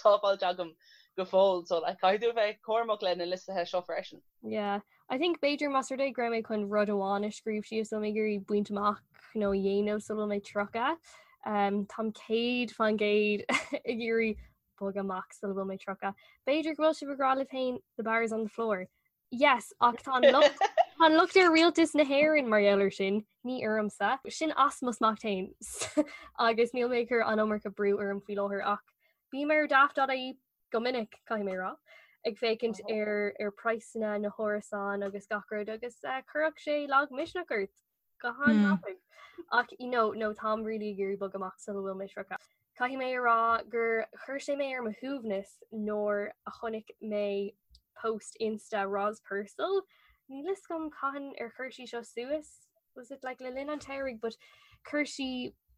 sábháilte agam go fóill so like caithfidh tú a bheith cúramach le na liostaithe seo freisin. Yeah. I think b'fhéidir más rud é go raibh mé chun rud amháin a scríobh síos a bhfuil mé ag iarraidh baint amach nó a dhéanamh sula bhfuil mé 30. Um, táim 100% ag iarraidh bogadh amach sula bhfuil mé 30. B'fhéidir go bhfuil sibh ag rá libh féin the bar is on the floor. Yes, ach tá an locht tá an locht ar rialtas na hÉireann mar gheall air sin, ní ormsa. Sin as mo smacht féin agus níl mé ag cur an iomarca brú orm faoi láthair ach bím ar daft.ie go minic, caithfidh mé a rá, ag féachaint ar ar praghsanna na hárasán agus gach rud agus eh, chuirfeadh sé lagmhisneach ort. Go han-tapaidh. Ach you know, no táim really ag iarraidh bogadh amach sula bhfuil mé 30. Caithfidh mé a rá gur chuir sé mé ar mo shuaimhneas nuair a chonaic mé post Insta Roz Purcell. Níl fhios agam cathain ar chuir sí seo suas, was it like le linn an tsamhraidh, but chuir sí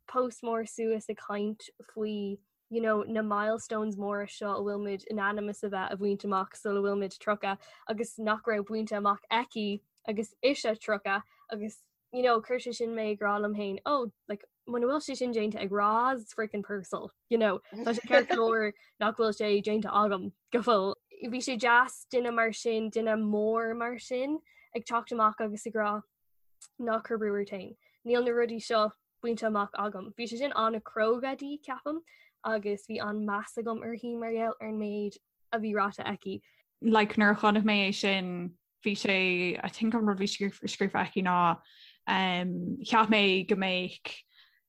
post mór suas ag caint faoi you know, na milestones móra seo a bhfuil muid in ainm is a bheith a bhaint amach sula bhfuil muid 30 agus nach raibh bainte amach aici agus ise 30 agus you know, chuir sé sin mé ag rá liom féin, oh, like, muna bhfuil sé sin déanta ag Roz freaking Purcell, you know, tá sé ceart go leor nach bhfuil sé déanta agam go fóill. Bhí sé deas duine mar sin, duine mór mar sin ag teacht amach agus ag rá ná cuir brú ort féin. Níl na rudaí seo bainte amach agam. Bhí sé sin an-chróga di, ceapaim, agus bhí an-meas agam uirthi mar gheall ar an méid a bhí ráite aici. Like nuair a chonaic mé é sin, bhí sé, I think an rud bhí scríofa aici ná um, cheap mé go mbeadh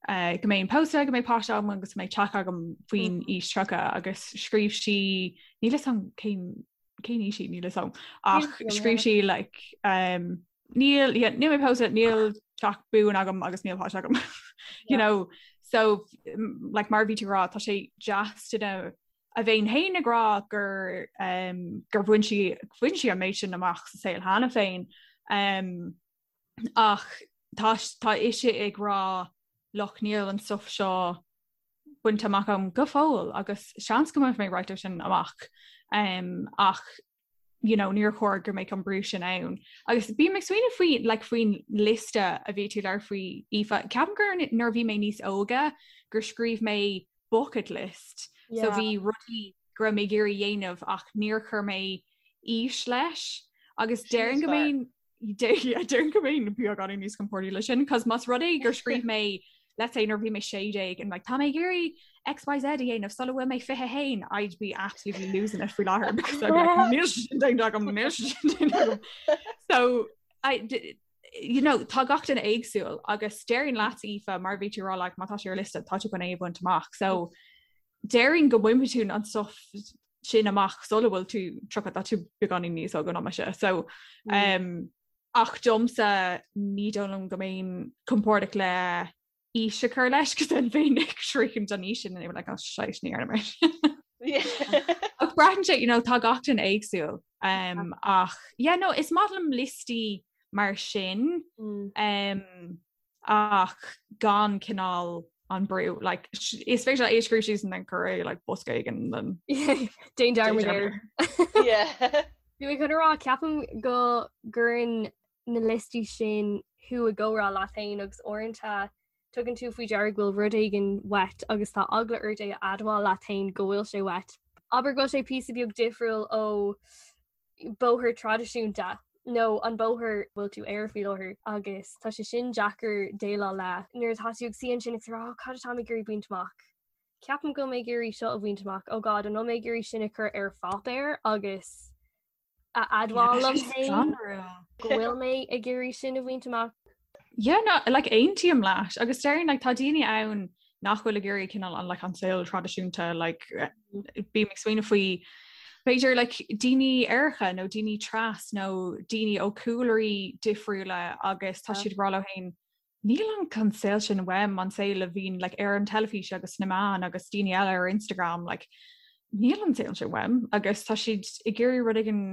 uh, go mbeinn pósta, go mbeadh páiste agam agus go mbeadh teach agam faoin mm. aois 30 agus scríobh sí níl fhios agam cén cén aois í níl fhios agam ach scríobh sí like um, níl yeah, níl mé pósta níl teach buan agam agus níl páiste agam you know so like mar bhí tú rá tá sé deas duine a bheith féin ag rá gur um, gur bhain sí bhain sí an méid sin amach sa saol cheana féin um, ach tá tá ise ag rá look níl an stuff seo bainte amach agam go fóill agus seans go mbainfidh mé roinnt de sin amach um, ach you know, níor chóir go mbeadh an brú sin ann. Agus bím ag smaoineamh faoi like, faoin liosta a bhí tú ag labhairt faoi Aoife. Ceapaim gur nuair a bhí mé níos óige gur scríobh mé bucket list. Yeah. So bhí rudaí go raibh mé ag iarraidh dhéanamh ach níor chuir mé aois leis agus déarfainn go mbeinn Déarfainn go mbeinn beagáinín níos compordaí leis sin, cos más rud é gur scríobh mé let's say nuair bhí mé 16 and like tá mé ag iarraidh XYZ a dhéanamh sula bhfuil mé 21 I'd be absolutely losing it faoi láthair because I'd be like níl sin déanta agam níl sin déanta agam. So I you know tá gach duine éagsúil agus déarfainn leat Aoife mar bhí tú rá like má tá sé ar liosta tá tú chun é a bhaint amach. So déarfainn go mbainfidh tú an stuff sin amach sula bhfuil tú 30 tá tú beagáinín níos óige ná mise. So um, ach domsa ní dóigh liom go mbeinn compordach le aois a chur leis cos then bheinn ag sroichint an aois sin and like, oh, shite, ní dhearna mé. Ach braitheann sé, you know, tá gach duine éagsúil. Um, ach yeah, no, is maith liom liostaí mar sin. Mm. Um, ach gan cineál an brú like is féidir é a scríobh síos and then cuir é like bosca éigin then Déan dearmad air. Yeah. Bhí mé chun a rá ceapaim go gcuireann na liostaí sin thú i gcomhrá leat féin agus uaireanta tugann tú faoi deara go bhfuil rud éigin uait agus tá eagla ort é a admháil leat féin go bhfuil sé uait. Abair go bhfuil sé píosa beag difriúil ó bóthar traidisiúnta nó an bóthar bhfuil tú air faoi láthair agus tá sé sin deacair déileáil le nuair atá tú ag suí ansin ag rá cad atá mé ag iarraidh baint amach. Ceapaim go bhfuil mé ag iarraidh seo a bhaint amach oh God an bhfuil mé ag iarraidh sin a chur ar pháipéar agus a admháil liom féin go bhfuil mé ag iarraidh sin a bhaint amach. Yeah, no, like aontaím leat agus déarfainn like tá daoine ann nach bhfuil ag iarraidh cineál an like an saol traidisiúnta like bím ag smaoineamh faoi b'fhéidir like daoine aeracha nó daoine tras nó daoine ó cúlraí difriúla agus tá siad ag rá leo féin níl an an saol sin uaim an saol a bhíonn like ar an teilifís agus sna meáin agus daoine eile ar Instagram like níl an saol sin uaim agus tá siad ag iarraidh rud éigin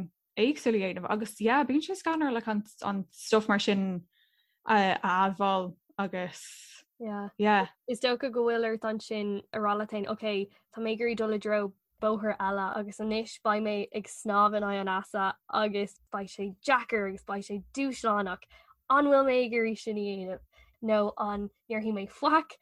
éagsúil a dhéanamh agus yeah bíonn sé scanrúil like an an stuff mar sin a admháil agus yeah yeah. Is dócha go bhfuil ort ansin a rá leat féin ok tá mé ag iarraidh dul i dtreo bóthar eile agus anois beidh mé ag snámh in aghaidh an easa agus beidh sé deacair agus beidh sé dúshlánach. An bhfuil mé ag iarraidh sin a dhéanamh? Nó an ndéarfaidh mé faic,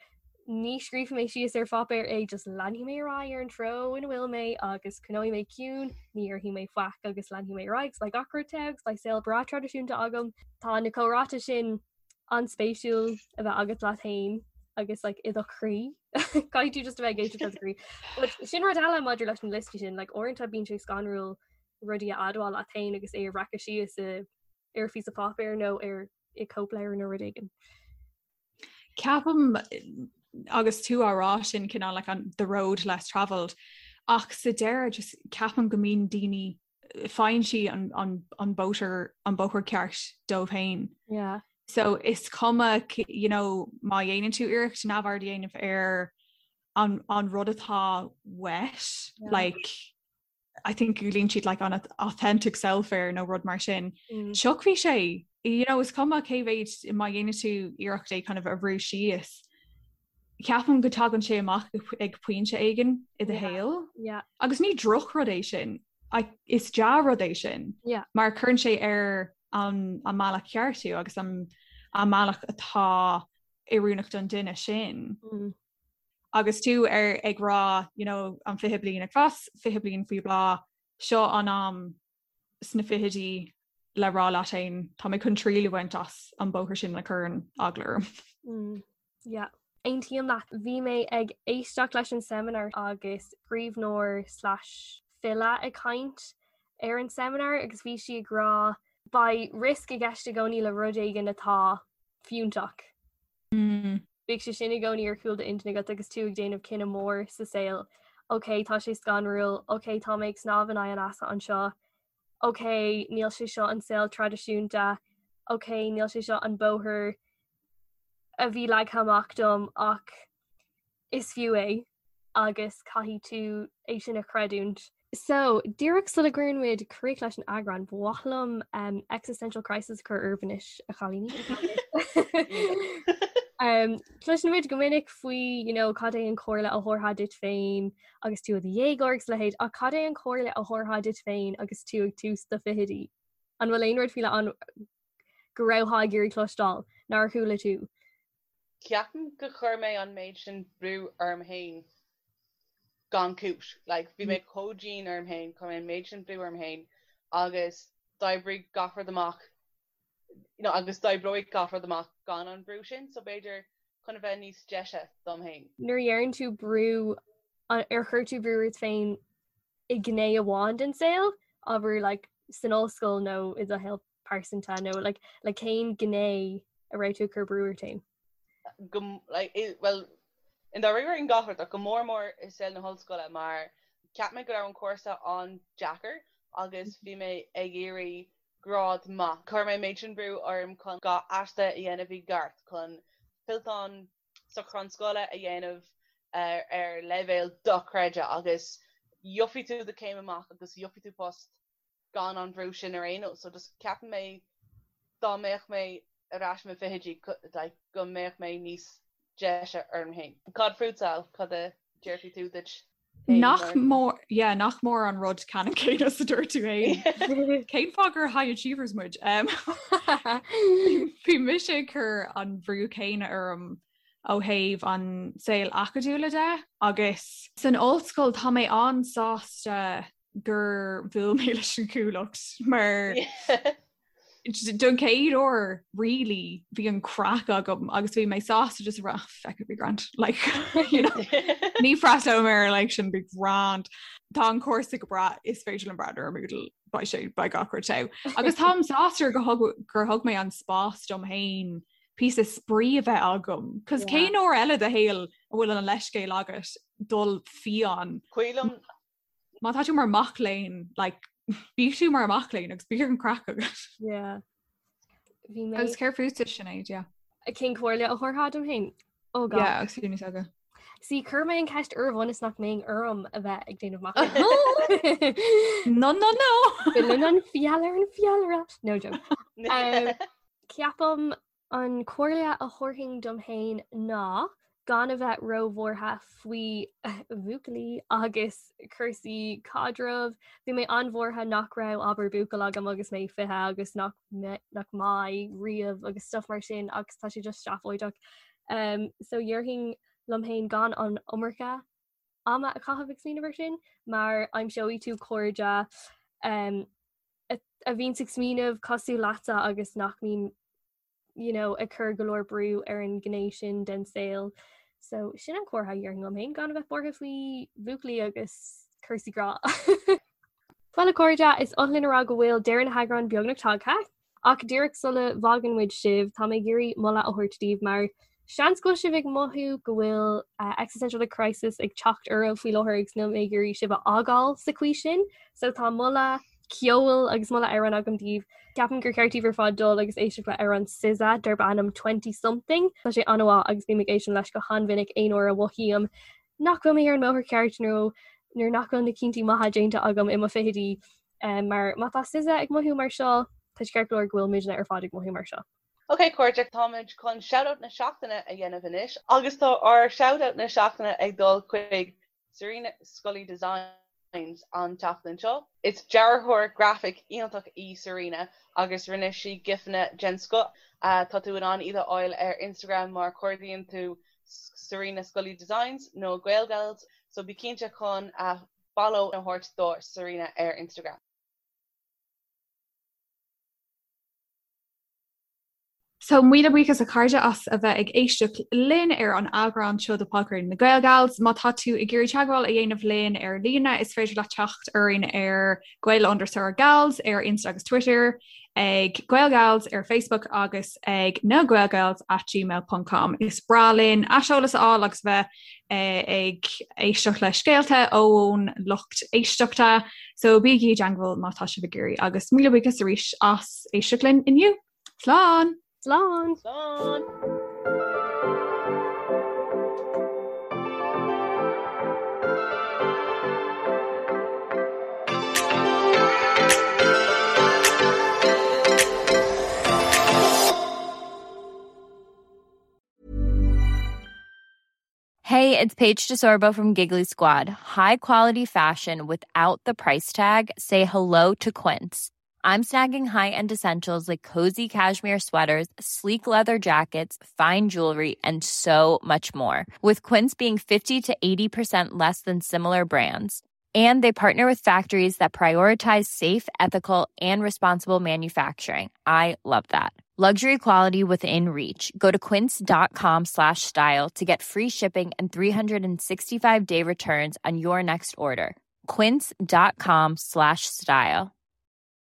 ní scríobfaidh mé síos ar pháipéar é, just leanfaidh mé ar aghaidh ar an treo ina bhfuil mé agus coinneoidh mé ciúin, ní dhéarfaidh mé faic agus leanfaidh mé ar aghaidh agus beidh gach rud togha agus beidh saol breá traidisiúnta agam. Tá na comhráite sin an-spéisiúil a bheith agat leat féin agus like, i do chroí. Caithfidh tú just a bheith ag éisteacht le do chroí. But sin rud eile maidir leis na liostaí sin, like, uaireanta bíonn sé scanrúil rudaí a admháil leat féin agus é a bhreacadh síos i ar phíosa páipéir nó ar i cóipleabhar nó rud éigin. Ceapaim agus tú á rá sin cineál like an the road less travelled ach sa deireadh just ceapaim go mbíonn daoine faigheann siad an, an, an bóthar an bóthar ceart dóibh féin. Yeah. So is cuma you know, má dhéanann tú iarracht neamhaird a dhéanamh ar an, an rud atá uait yeah. like I think glaonn siad like an authentic self air nó rud mar sin. Mm. Tiocfaidh sé you know, is cuma cé mhéid má dhéanann tú iarracht é kind of a bhrú síos. Ceapaim go dtagann sé amach ag pointe éigin i do shaol. Yeah. Agus ní drochrud é sin. Is dea-rud é sin. Yeah. Mar cuireann sé ar an an mbealach ceart tú agus an an mbealach atá oiriúnach don duine sin. Mm. Agus tú ar ag rá you know, an 20 bliain ag fás, 20 bliain faoi bhláth, seo an am sna fichidí le rá leat féin tá mé chun triail a bhaint as an bóthar sin a chuireann eagla orm. Mm, yeah. Aontaím leat. Bhí mé ag éisteacht leis an seimineár agus scríbhneoir slash file ag caint ar an seimineár agus bhí sí ag rá beidh riosca i gceist i gcónaí le rud éigin atá fiúntach. Mm. Bíodh sé sin i gcónaí ar chúl d'intinne agat agus tú ag déanamh cinneadh mór sa saol. Ok, tá sé scanrúil, ok, tá mé ag snámh in aghaidh an easa anseo, ok, níl sé seo an saol traidisiúnta, ok, níl sé seo an bóthar a bhí leagtha amach dom ach is fiú é agus caithfidh tú é sin a chreidiúint. So, díreach sula gcuireann muid críoch leis an eagrán, ba mhaith liom um, existential crisis a chur oraibh anois, a chailíní. um, Cloiseann muid go minic faoi you know, cad é an chomhairle a thabharfá duit féin agus tú i do dhéagóir agus a leithéid, ach cad é an chomhairle a thabharfá duit féin agus tú ag tús do fichidí? An bhfuil aon rud faoi leith ann go rabhthá ag iarraidh cloisteáil nár chuala tú? Ceapaim gur chuir mé an méid sin brú orm féin gan cúis. Like, bhí mé chomh dian orm féin, chuir mé an méid sin brú orm féin agus d'oibrigh gach rud amach, you know, agus d'oibreoidh gach rud amach gan an brú sin, so b'fhéidir chun a bheith níos deise dom féin. Nuair a dheireann tú brú, ar chuir tú brú ort féin i ngné amháin den saol, abair like san ollscoil nó i do shaol pearsanta nó like le cén gné a raibh tú ag cur brú ort féin? Go like i well i ndáiríre in gach rud ach go mór mór i saol na hollscoile mar cheap mé go raibh an cúrsa an-deacair agus bhí mé ag iarraidh grád maith. Chuir mé an méid sin brú orm chun gach aiste a dhéanamh i gceart, chun fillteán socrúchán scoile a dhéanamh ar leibhéal dochreidte agus gheobhaidh tú do chéim amach agus gheobhaidh tú post gan an brú sin ar aon nós. So just ceapann mé dá mbeadh mé ar ais i mo fichidí like go mbeadh mé níos deise orm féin. Cad fútsa, cad a déarfaidh tú duit féin Nach mór yeah, nach mór an rud ceannann céanna is a dúirt tú féin. Cén fáth gur high achievers muid? Um, Bhí mise ag cur an bhrú céanna orm ó thaobh an saol acadúla de agus san ollscoil tá mé an-sásta gur bhuail mé leis an Chuallacht mar don chéad uair really bhí an craic agam agus bhí mé sásta just rá feck it be grand like you know ní freastalóidh mé ar like sin be grand Tá an cúrsa go breá is féidir liom breathnú ar Moodle beidh sé beidh gach rud togha. Agus táim sásta gur thug gur thug mé an spás dom féin píosa spraoi a bheith agam. Cos cén uair eile i do shaol a bhfuil an leithscéal agat dul fiáin. Cuimhin liom Má tá tú mar mac léinn, like, bí tú mar mac léinn agus bíodh an craic agat. Yeah. Bhí mé Agus céard fútsa Sinéad, yeah. Cén comhairle a thabharfá dom féin? Oh God. Yeah, agus tú níos óige. See, chuir mé an ceist oraibh ionas nach mbeinn orm a bheith ag déanamh machnaimh. No, no, no! Filleann an feall ar an bhfeallaire. No joke. Um, ceapaim an comhairle a thabharfainn dom féin ná. Gan a bheith róbhuartha faoi bhuachaillí agus cúrsaí caidrimh. Bhí mé an-bhuartha nach raibh abair buachaill agam agus mé 20 agus nach nach mbeidh riamh agus stuff mar sin agus tá sé just seafóideach. Um, so dhéarfainn liom féin gan an iomarca ama a chaitheamh ag smaoineamh ar sin mar aimseoidh tú cairde um, a, a bhíonn ag smaoineamh cosúil leatsa agus nach mbíonn you know, ag cur go leor brú ar an ghné sin den saol. So sin an comhairle a dhéarfainn liom féin gan a bheith buartha faoi bhuachaillí agus cúrsaí grá. Bhuel a chairde, is oth linn a rá go bhfuil deireadh na heagráin beagnach tagtha, ach díreach sula bhfágann muid sibh, tá mé ag iarraidh moladh a thabhairt daoibh mar seans go bhfuil sibh ag mothú go bhfuil uh, existential crisis ag teacht oraibh faoi láthair agus níl mé ag iarraidh sibh a fhágáil sa chaoi sin, so tá moladh ceoil agus moladh amhráin agam daoibh. Ceapaim gur cheart daoibh ar fad dul agus éisteacht le amhrán SZA darb ainm Twenty Something. Tá sé an-mhaith agus bím ag éisteacht leis go han-mhinic aon uair a mhothaím nach bhfuil mé ar an mbóthar ceart nó nuair nach bhfuil na cinntí maithe déanta agam i mo fichidí. Um, mar má tá SZA ag mothú mar seo, tá sé ceart go leor go bhfuil muidne ar fad ag mothú mar seo. Ok cairde, táimid chun shoutout na seachtaine a dhéanamh anois agus tá ár shoutout na seachtaine ag dul chuig Serena Scully Designs an tseachtain seo. Is dearthóir grafaic iontach í Serena agus rinne sí gifeanna den scoth. Tá tú in ann iad a fháil ar Instagram má chuardaíonn tú Serena Scully Designs nó Gaelgals, so bí cinnte chun follow a thabhairt do Serena ar Instagram. So míle buíochas a chairde as a bheith ag éisteacht linn ar an eagrán seo de Podchraoladh na Gaelgals. Má tá tú ag iarraidh teagmháil a dhéanamh linn ar líne, is féidir leat teacht orainn ar Gael underscore Gals ar Insta agus Twitter, ag Gaelgals ar Facebook agus ag na Gaelgals at gmail ponc com. Is breá linn aiseolas a fháil agus bheith ag éisteacht le scéalta ón lucht éisteachta, so bígí i dteagmháil má tá sibh ag iarraidh agus míle buíochas arís as éisteacht linn inniu. Slán! Slán! Slán! Hey, it's Paige DeSorbo from Giggly Squad. High quality fashion without the price tag. Say hello to Quince. I'm snagging high-end essentials like cozy cashmere sweaters, sleek leather jackets, fine jewelry, and so much more. With Quince being 50 to 80% less than similar brands. And they partner with factories that prioritize safe, ethical, and responsible manufacturing. I love that. Luxury quality within reach. Go to quince.com slash style to get free shipping and 365 day returns on your next order. Quince.com slash style.